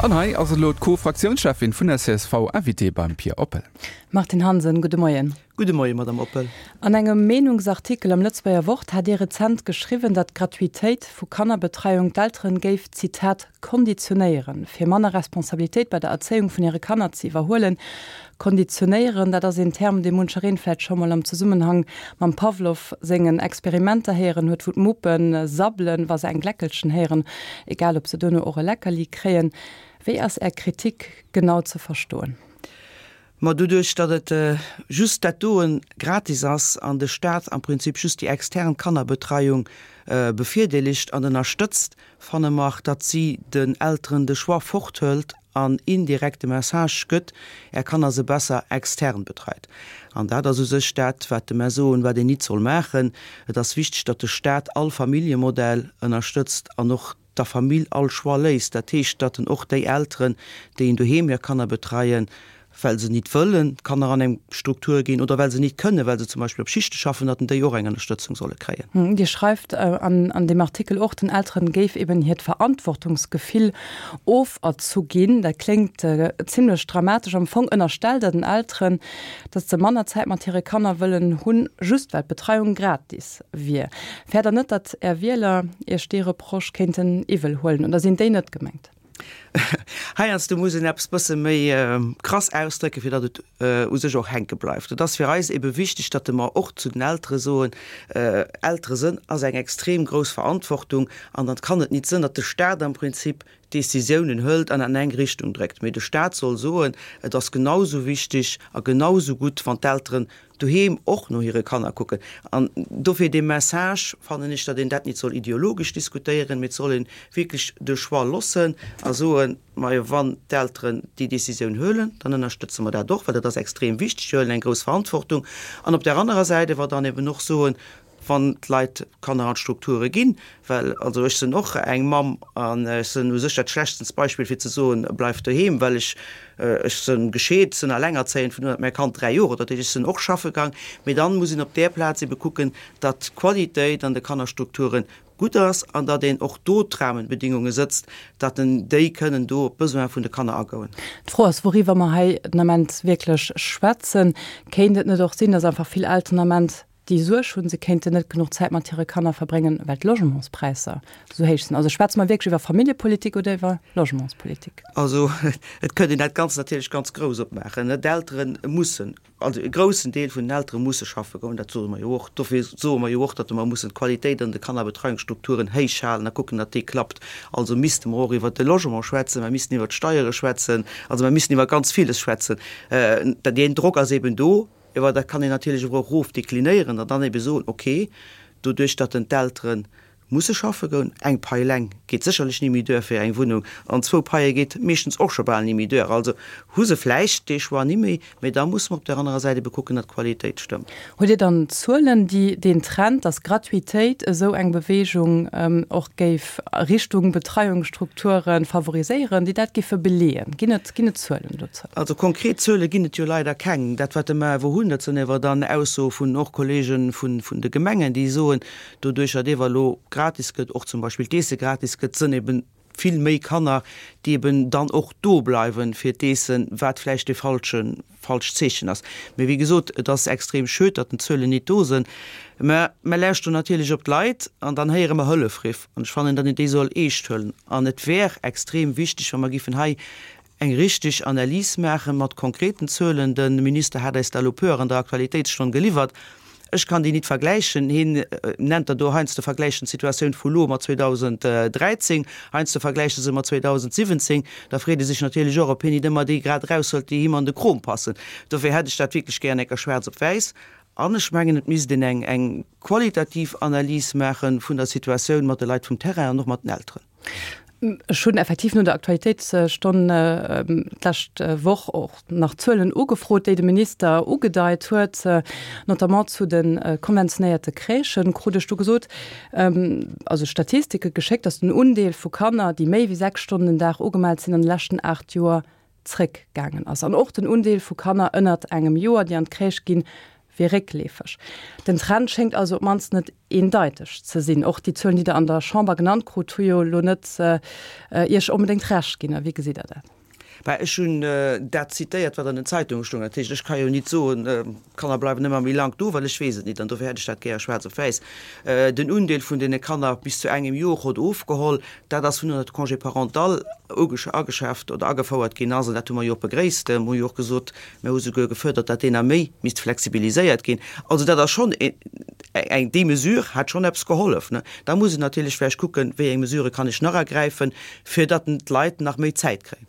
An hei ass elo d'Co-Fraktiounscheffin vun der csv, Invitée beim Pia Oppel. Martine Hansen, gudde Moien. Gudde Moien, Madame Oppel. An engem Meenungsartikel am Lëtzebuerger Wort hat Dir rezent geschriwwen, datt d'Gratuitéit vu Kannerbetreiung d'Elteren géif, Zitat, konditionéieren, fir manner Responsabilitéit bei der Erzéiung vun hire Kanner ze iwwerhuelen. Konditionéieren, dat ass een Term, dee munchereen vläicht scho mol am Zesummenhang mam Pavlov sengen Experimenter héieren huet, wou d'Muppe sabbelen, wa se eng Gläckelchen héieren, egal ob se duerno och e Leckerli kréien. Wéi ass Är Kritik genau ze verstoen? Ma doduerch, datt et just dat doen gratis ass an de Staat am Prinzip just déi extern Kannerbetreiung bevirdeelegt an ënnerstëtzt, fanne mer, datt si den Elteren de Choix forthëlt an indirekt de Message gëtt, Är Kanner se besser extern betreit. An dat ass u sech dat, wat de mer soen, wat een nit soll maachen. Et ass wichteg, datt de Staat all Familljemodell ënnerstëtzt an och der Famill all Choix léisst. Dat heescht, datt en och déi Elteren, déi en doheem hir Kanner betreien, well se nit wëllen d'Kanner an eng Struktur ginn oder well se nit kënnen, well se zum Beispill op Schichte schaffen, datt en déi och eng Ënnerstëtzung solle kréien. Dir schreift an deem Artikel och, den Elteren géif eben hiert Verantwortungsgefill oferzu ginn. Dat kléngt zimlech dramatesch. Am Fong ënnerstellt Der den Elteren, datt se manner Zäit mat hire Kanner wëllen hunn, just well d'Betreiung gratis wier. Fäert Der net, datt Är Wieler Iech dee Reproche kéinten iwwel huelen? Oder sinn déi net gemengt? Heiansdo muss een eppes bësse méi krass ausdrécken, fir datt et u sech och hänke bleift. Et ass fir eis ebe wichteg, datt mer och zu den Eltere soen, Eltere sënn ass eng extrem grouss Verantwortung an dann kann et nit sënn, datt de Staat am Prinzip Décisiounen hëlt an an eng Richtung dréckt, mee de Staat soll soen, et ass genau sou wichteg a genau sou gutt, wann d'Elteren doheem och no hire Kanner kucken. An dofir dee Message, fannen ech, datt een dat nit soll ideologesch diskutéieren, mee et soll ee wierklech de Choix loossen a soen, Majo, wann d'Elteren déi Décisioun huelen, dann ënnerstëtze mer dat och, well dat ass extrem wichteg, si huelen eng grouss Verantwortung. An op där anerer Säit ewer dann eben och soen, wann d'Leit Kanner an d'Strukture ginn, well also ech sinn och eng Mamm an ech sinn u sech dat schlechtens Beispill fir ze soen, bleif doheem, well ech ech sinn gescheet, sinn allengerzéiend, vun do un hat mäi Kand 3 Joer, dat heescht ech sinn och schaffe gang, mee dann muss een op där Plaz ebe kucken, datt d'Qualitéit an de Kannerstrukture gutt ass an datt een och do d'Rahmenbedingunge sëtzt, datt en déi kënnen do op d'Besoin vun de Kanner agoen. D'Fro ass, wouriwwer mer hei den Ament wierklech schwätzen. Kéint et net och sinn, datt einfach vill Elteren den Ament déi Suerg hunn, se kéinten net genuch Zäit mat hire Kanner verbréngen, well d'Logementspräisser esou héich sinn. Also schwätze mer wierklech iwwer Familljepolitik oder iwwer Logementspolitik? Also et kënnt een dat Ganzt natierlech ganz grouss opmaachen. D'Eltere mussen, also e groussen Deel vun den Eltere musse schaffe goen, dat soe mer jo och. Dofir soe mer jo och, datt mer mussen d'Qualitéit an de Kannerbetreiungsstrukturen héich halen a kucken, datt déi klappt. Also misste mer och iwwert de Logement schwätzen, mer missten iwwert d'Steiere schwätzen, also mer missten iwwer ganz villes schwätzen. Deen Drock ass eben do. Ewer dat kann een natierlech och erof deklinéieren an dann ebe soen, ok, doduerch datt en d'Eltere musse schaffe goen, eng Pai eleng geet sécherlech ni méi duer fir eng Wunnung an zwou Paie geet meeschtens och scho bal ni méi duer. Also hu se vläicht dee Choix ni méi, mä da musse mer op där anerer Säit ebe kucken, datt d'Qualitéit stëmmt. Hutt Dir dann Zuelen, déi deen Trend, datt Gratuitéit esou eng Bewegung och géif a Richtung Betreiungsstrukture favoriséieren, déi dat géife beleeën? Ginn et, ginn et Zuelen dozou? Also konkret Zuele ginn et jo leider keng. Dat wat mer awer hunn, dat sinn ewer dann Aussoe vun och Kollege vun de Gemengen, déi soen, doduerch datt ewer elo gratis gëtt, och zum Beispill d'Eesse gratis gëtt, sënn eben vill méi Kanner, déi eben dann och do bleiwen fir d'Eessen, wat vläicht dee falsche falscht Zeechen ass. Mee wéi gesot, et ass extrem schued, datt den Zuelen nit do sënn. Mä mer lauschteren natierlech op d'Leit an dann héiere mer Hëllefriff an ech fannen, datt een déi soll eescht huelen. An et wär extrem wichteg, wa mer giffen hei eng richteg Analys maachen, mat konkreten Zuelen. De Minister hat eis der elo puer an der Aktualitéitsstonn geliwwert. Ech kann déi nit vergläichen. Hien nennt der do heiansdo vergläichen d'Situatioun vu lo mat 2013, heiansdo vergläicht e se mat 2017. Da freet ee sech natierlech och, ob hien nit ëmmer déi grad eraushëlt, déi him an de Krom passen. Dofir hätt ech dat wierklech gär enker schwaarz op wäiss. An ech mengen, et misst een eng eng qualitativ Analys maache vun der Situatioun mat de Leit vum Terrain an och mat den Elteren. Ech hunn effektiv no der Aktualitéitsstonn d'lescht Woch och nach Zuelen ugefrot, déi de Minister ugedeit huet, notamment zu de konventionéierte Crèchen. Krut ech du gesot, also Statistike geschéckt, datt den Undeel vu Kanner, déi méi wéi 6 Stonnen den Dag ugemellt sinn, an de leschten 8 Joer zréckgaangen ass. An och den Undeel vu Kanner ënnert engem Joer, déi an d'Crèche ginn, wier réckleefeg. Den Trend schéngt also op d'mannst net eendeiteg ze sinn. Och déi Zuelen, déi Der an der Chamber genannt krut, hu jo elo net Iech onbedéngt Recht ginn. A wéi gesitt Der dat? Bah, ech hunn dat zitéiert, wat an den Zeitunge stoung. Dat heescht, ech ka jo nit soen, d'Kanner bleiwen ëmmer méi laang do, well ech weess et nit. An dofir hätt ech dat gäre schwaarz op wäiss. Den Undeel vun deene Kanner bis zu engem Jor hott ofgeholl. Dat ass vun un, datt de Congé parental ageschaaft oder agefouert ginn ass. An dat hu mer jo och begréisst. Mer hu jo och gesot, mer hu souguer gefuerdert, datt deen nach méi misst flexibiliséiert ginn. Also dat ass schonn eng, déi Mesure hat schonn eppes gehollef. Da muss een natierlech vläicht kucken, wéi eng Mesurë kann ech nach ergräifen, fir datt d'Leit nach méi Zäit kréien.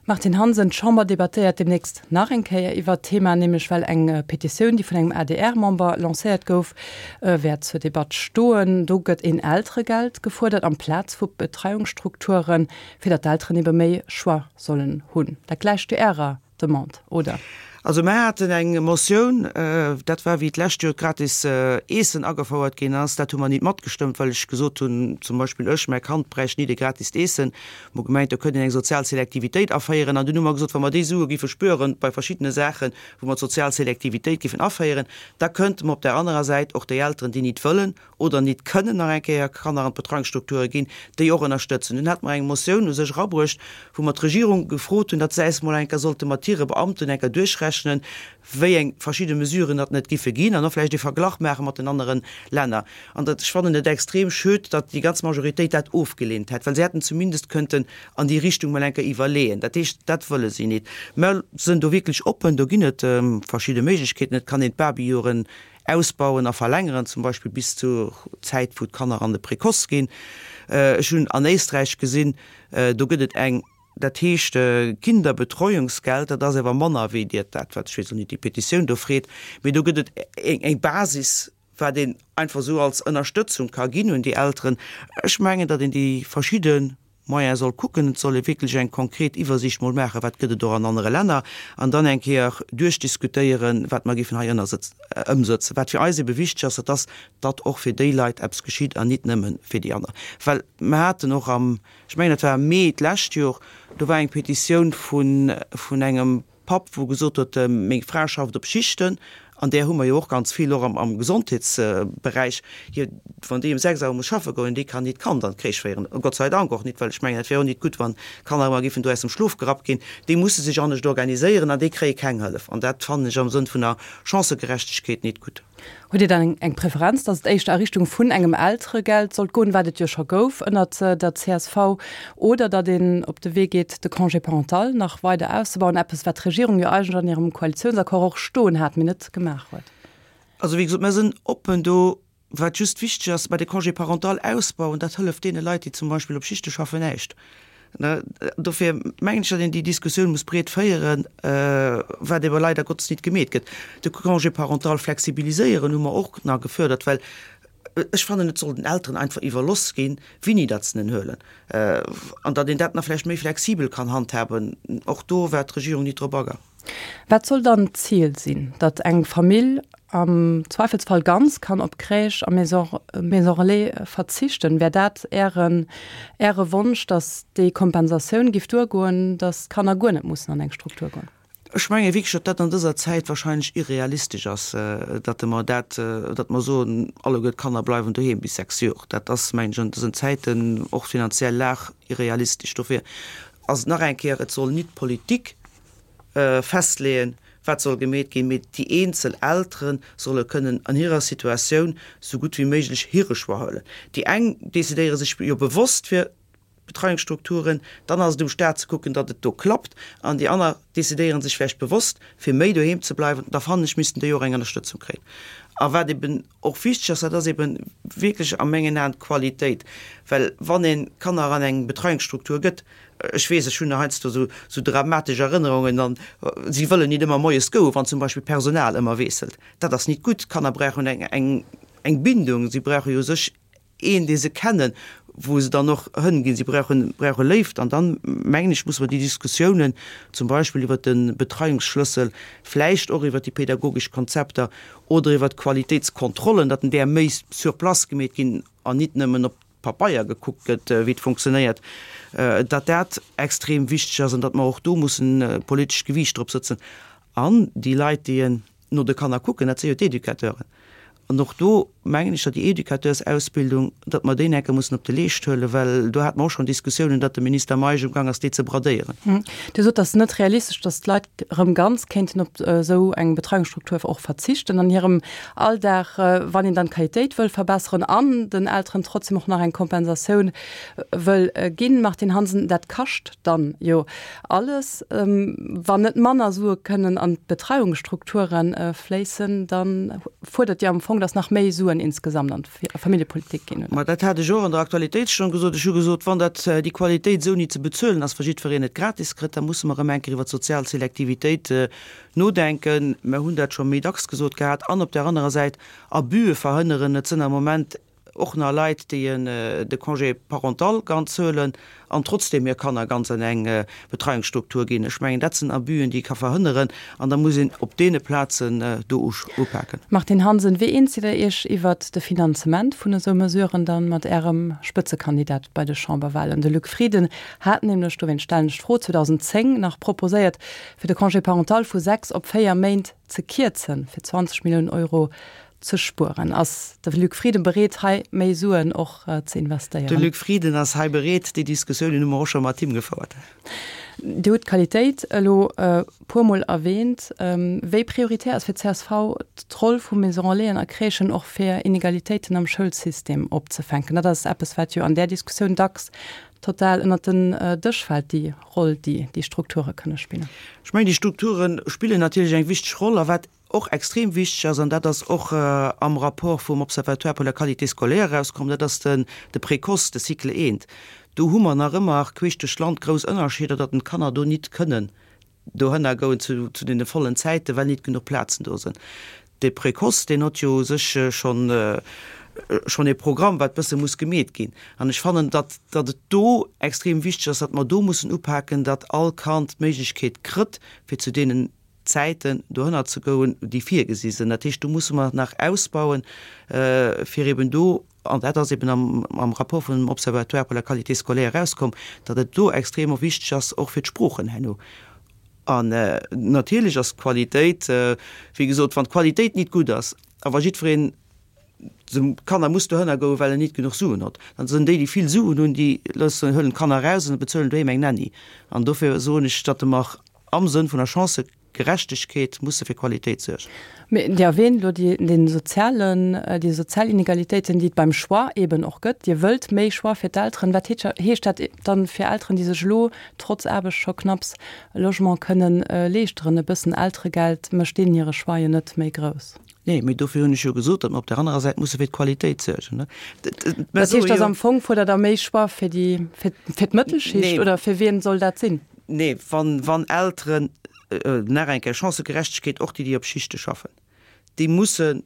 Martine Hansen, D'Chamber debattéiert deemnächst nach eng Kéier iwwert d'Thema, nämlech well eng Petitioun, déi vun engem ADR-Member lancéiert gouf, wäert zur Debatt stoen. Do gëtt een Elteregeld gefuerdert amplaz vu Betreiungsstrukturen, fir datt d'Elteren ebe méi Choix sollen hunn. Dat gläicht jo Ärer Demande, oder? Also mer haten eng Motioun, dat war wéi d'lescht Joer d'gratis Eessen agefouert ginn ass, dat hu mer nit matgestëmmt, well ech gesot hunn, zum Beispill ech, mäi Kand bräicht nit e gratist Eessen. Mer hu gemengt, do kënnt een eng sozial Selektivitéit aféieren. An dunn hu mer gesot, wa mer déi Sue giffe spueren bei verschiddene Saachen, wou mer d'sozial Selektivitéit giffen aféieren, da kënnte mer op där anerer Säit och déi Elteren, déi nit wëllen oder nit kënnen nach eng Kéier Kanner an d'Betreuungsstrukture ginn, déi och ënnerstëtzen. Dunn hate mer eng Motioun u sech erabruecht, wou mer d'Regierung gefrot hunn, datt se äis mol eng Kéier sollte mat hire Beamten eng Kéier duerchrechnen, wéi eng verschidde Mesuren datt net giffe ginn an och vläicht e Verglach maache mat den anere Länner. An dat, ech fannen et extrem schued, datt déi ganz Majoritéit dat ofgeleent hätt, well se hätten zumindest kënnten an déi Richtung mol eng Kéier iwwerleeën. Dat heescht, dat wëlle si nit. Mer sënn do wierklech oppen, do ginn et verschidde Méiglechkeeten. Et kann een d'Babyjoren Ausbauen a verlängeren, zum Beispill bis zur Zäit, wou d'Kanner an de Précoce ginn. Ech hunn an Éisträich gesinn, do gëtt et eng, dat heescht Kinderbetreuungsgeld, dat ass awer manner wéi Dir dat, wat, ech weess elo net, déi Petitioun do freet, mee do gëtt et eng Basis, wat een einfach esou als Ënnerstëtzung ka ginn un déi Elteren. Ech mengen, datt een déi verschidde Moyen soll kucken, et soll ee wierklech eng konkret Iwwersiicht mol maachen, wat gëtt et och an anere Länner, an dann eng Kéier duerchdiskutéieren, wat mer géifen hei ëmsëtzen. Wat fir eis ebe wichteg ass, dat ass, datt och fir déi Leit eppes geschitt an nit nëmme fir déi aner. Well mer haten och am, ech mengen dat war am Mee d'lescht Jor, do war eng Petitioun vun engem, Papp, wou gesot huet, meng Fra schafft op Schichten, an där hu mer jo och ganz vill, och am Gesondheetsberäich, hir, wann déi um 6 Auer muss schaffe goen, déi kann nit d'Kand an d'Crèche féieren, Gott sei Dank och nit, well ech mengen, et wär och nit gutt, wann d'Kanner ëmmer géifen do aus dem Schlof gerappt ginn. Déi musse sech anescht organiséieren an déi kréie keng Hëllef an dat fannen ech am Sënn vun der Chancëgerechtegkeet nit gutt. Hutt Dir dann eng Preferenz, datt et éischter a Richtung vun engem Elteregeld sollt goen, wat et jo scho gouf ënnert der csv, oder datt een op de Wee geet, de Congé parental nach weider auszebauen, eppes wat d'Regierung jo eigentlech an hirem Koalitiounsaccord och stoen hat, mee net gemaach huet? Also wéi gesot, mer sinn oppen do. Wat just wichteg ass, bei de Congé parental ausbauen, dat hëlleft deene Leit, déi zum Beispill op Schichte schaffen, näischt. Dofir mengen ech, datt een déi Diskussioun muss breet féieren, wat ewer leider Gottes nit gemeet gëtt. De Congé parental flexibiliséieren hu mer och nach gefördert, well ech fannen, et soll den Elteren einfach iwwerloss ginn, wéini datt se en huelen, an datt een dat nach vläicht méi flexibel kann handhaben. Och do war d'Regierung nit drop agaang. Wat soll dann d'Zil sinn? Datt eng Famill am Zweifelsfall ganz kann op Crèche a Maison Relais verzichten? Wär dat Ären, Äre Wonsch, datt déi Kompensatioun giff duergoen, datt d'Kanner guer net mussen an eng Struktur goen? Ech menge wierklech, datt dat an dëser Zäit wahrscheinlech irrealistesch ass, datt mer dat, datt mer soen, alleguer d'Kanner bleiwen doheem bis 6 Jor. Dat ass, mengen ech, an dësen Zäiten, och finanziell Lag, irrealistesch. Dofir ass et nach eng Kéier, et soll nit d'Politik festleeën, wat soll gemeet ginn, mee déi eenzel Eltere solle kënnen an hirer Situatioun sou gutt wéi méiglech hire Choix huelen. Déi eng decidéiere sech jo bewosst fir Betreiungsstrukturen, dann ass et um Staat ze kucken, datt et do klappt, an déi aner decidéiere sech vläicht bewosst fir méi doheem ze bleiwen. Da fannen ech, missten déi och eng Ënnerstëtzung kréien. A wat eben och wichteg ass, dat ass eben wierklech a mengen Aen d'Qualitéit, well wann ee Kanner an eng Betreiungsstruktur gëtt, Ech weess, ech hunn heiansdo esou, esou dramatesch Erënnerungen an si wëllen nit ëmmer moies goen, wann zum Beispill d'Personal ëmmer wiesselt. Dat ass nit gutt. D'Kanner brauchen eng, eng, eng Bindung. Si brauche jo u sech een, dee se kennen, wou se dann och hënginn. Si brauchen, brauche Léift. An dann, mengen ech, musse mer déi Diskussiounen zum Beispill iwwert de Betreiungsschlëssel, vläicht och iwwert déi pädagogesch Konzepter oder iwwert d'Qualitéitskontrollen, datt en där méi sur place gemeet ginn an nit nëmmen op Pabeier gekuckt gëtt, wéi et funktionéiert, datt dat extrem wichteg ass an datt mer och do mussen politescht Gewiicht drop sëtzen an déi Leit, déi en. no de Kanner kucken, dat si jo d'Educateuren. An och do mengen ech, datt déi Educateursausbildung, datt mer déi enke mussen op de Leescht huelen, well do hate mer och schonn Diskussiounen, datt de Minister Meisch umgang ass, déi ze bradéieren. Dir sot, et ass net realistesch, datt d'Leit erëm ganz kéinten op esou eng Betreiungsstruktur och verzichten an hirem Alldag, wann een dann d'Qualitéit wëll verbesseren an den Elteren trotzdem och nach eng Kompensatioun wëll ginn. Martine Hansen, Dat kascht dann jo alles. Wann net manner Sue kënnen an d'Betreiungsstrukture fléissen, da fuerdert Dir am Fong, datt nach méi Suen insgesamt an d'Familljepolitik ginn, oder? Ma dat hat ech och an der Aktualitéitsstonn gesot. Ech hu gesot, wann dat déi Qualitéit esou ni ze bezuelen ass, wa jiddwereen et gratis kritt, da musse mer erëm eng Kéier iwwer d'sozial Selektivitéit nodenken. Mer hunn dat scho méi dacks gesot gehat. An op där anerer Säit Abüe verhënneren. Et sënn am Moment och nach Leit, déi de Congé parental ganz huelen an trotzdeem hir Kanner ganz an eng Betreiungsstruktur ginn. Ech mengen, dat sinn Abüen, déi ee ka verhënneren, an da muss een op deene Plazen do upaken. Martine Hansen, Wéi eens sidd Der Iech iwwert de Finanzement vun esou Mesuren dann mat Ärem Spëtzekandidat bei de Chamberwahlen? De Luc Frieden hat nämlech, dowéinst stellen ech d'Fro, 2010 nach proposéiert, fir de Congé parental vu 6 op 4 Méint ze kierzen, fir 20 Milliounen Euro ze spueren. Ass de Luc Frieden bereet, hei méi Suen och ze investéieren? De Luc Frieden ass hei bereet. Déi Diskussiounen hu mer och scho mat him gefouert. Dir hutt d'Qualitéit elo e puermol erwähnt. Wéi prioritär ass fir d'CSV d'Roll vu Maison Relaisen a Crèchen och fir Inegalitéiten am Schoulsystem opzefänken? Dat ass eppes, wat jo an där Diskussioun dacks total ënnert den Dësch fält, déi Roll, déi déi Strukture kënne spillen. Ech mengen, déi Strukture spillen natierlech eng wichteg Roll. A wat och extrem wichteg ass, an dat ass och am Rapport vum Observatoire pour la qualité scolaire erauskomm, dat ass den de Précoce, de Cycle I. Do hu mer nach ëmmer queesch duerch d'Land grouss Ënnerscheeder, datt den d'Kanner do nit kënnen dohënner goen zu zu deene vollen Zäiten, well nit genuch Plazen do sinn. De Précoce, deen hott jo u sech schonn schonn ee Programm, wat bësse muss gemeet ginn. An ech fannen, datt datt et do extrem wichteg ass, datt mer do mussen upaken, datt all Kand d'Méiglechkeet krëtt, fir zu deenen Zäiten dohënner ze goen, déi virgesi sinn. Dat heescht, do musse mer nach ausbauen, fir eben do, an dat ass eben am am Rapport vum Observatoire pour la qualité scolaire erauskomm, datt et do extrem och wichteg ass, och fir d'Sproochen herno. An natierlech ass d'Qualitéit, wéi gesot, wann d'Qualitéit nit gutt ass a wa jiddwereen de Kanner muss dohënner goen, well en nit genuch Suen hott, dann sinn déi, déi vill Suen hunn, déi loossen, huelen d'Kanner eraus an bezuelen doheem eng Nanny. An dofir soen ech, datt mer am Sënn vun der Chancëgerechtegkeet musse fir Qualitéit suergen. Mee Dir erwähnt elo déi, den sozialen, déi sozial Inegalitéiten, déi et beim Choix eeben och gëtt. Dir wëllt méi Choix fir d'Elteren. Wat heescht dat dann fir Elteren, déi sech elo trotz Aarbecht scho knapps e Logement kënnen leeschteren? E bëssen Elteregeld mécht deenen hire Choix jo net méi grouss. Nee, mee dofir hunn ech jo gesot, datt mer op där anerer Säit musse fir d'Qualitéit suergen. Dat heescht, dass am Fong fuerdert Der méi Choix fir déi, fir, fir d'Mëttelschicht oder fir wien soll dat sinn? Nee, wann, wann Elteren, nach eng Kéier, Chancëgerechtegkeet, och déi, déi op Schichte schaffen, déi mussen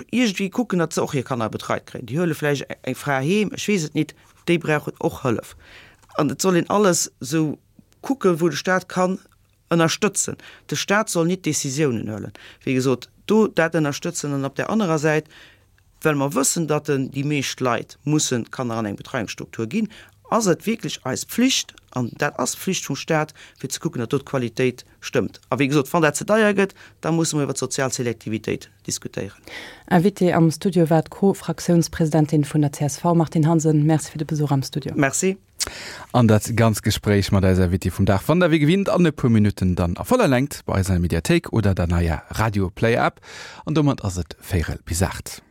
iergendwéi kucken, datt se och hir Kanner betreit kréien. Déi huele vläicht eng Fra heem, ech weess et nit, déi brauchen och Hëllef. An et soll een alles esou kucken, wou de Stat kann Ënnerstëtzen. De Stat soll nit Décisiounen huelen. Wéi gesot, do dat ënnerstëtzen an op där anerer Säit, well mer wëssen, datt déi meescht Leit mussen d'Kanner an eng Betreiungsstruktur ginn, ass et wierklech eis Pflicht, an dat ass d'Pflicht vum Stat, fir ze kucken, datt do d'Qualitéit stëmmt. A wéi gesot, wann dat ze deier gëtt, da musse mer iwwer d'sozial Selektivitéit diskutéieren. Invitée am Studio war d'Co-Fraktiounspresidentin vun der csv, Martine Hansen. Merci fir de Besuch am Studio. Merci. An dat ganz Gespréich mat eiser Invitée vum Dag fannt der wéi gewinnt an e puer Minutten dann a voller Längt bei eis an der Mediathéik oder der neier Radio Player App. An domat ass et véirel bis 8.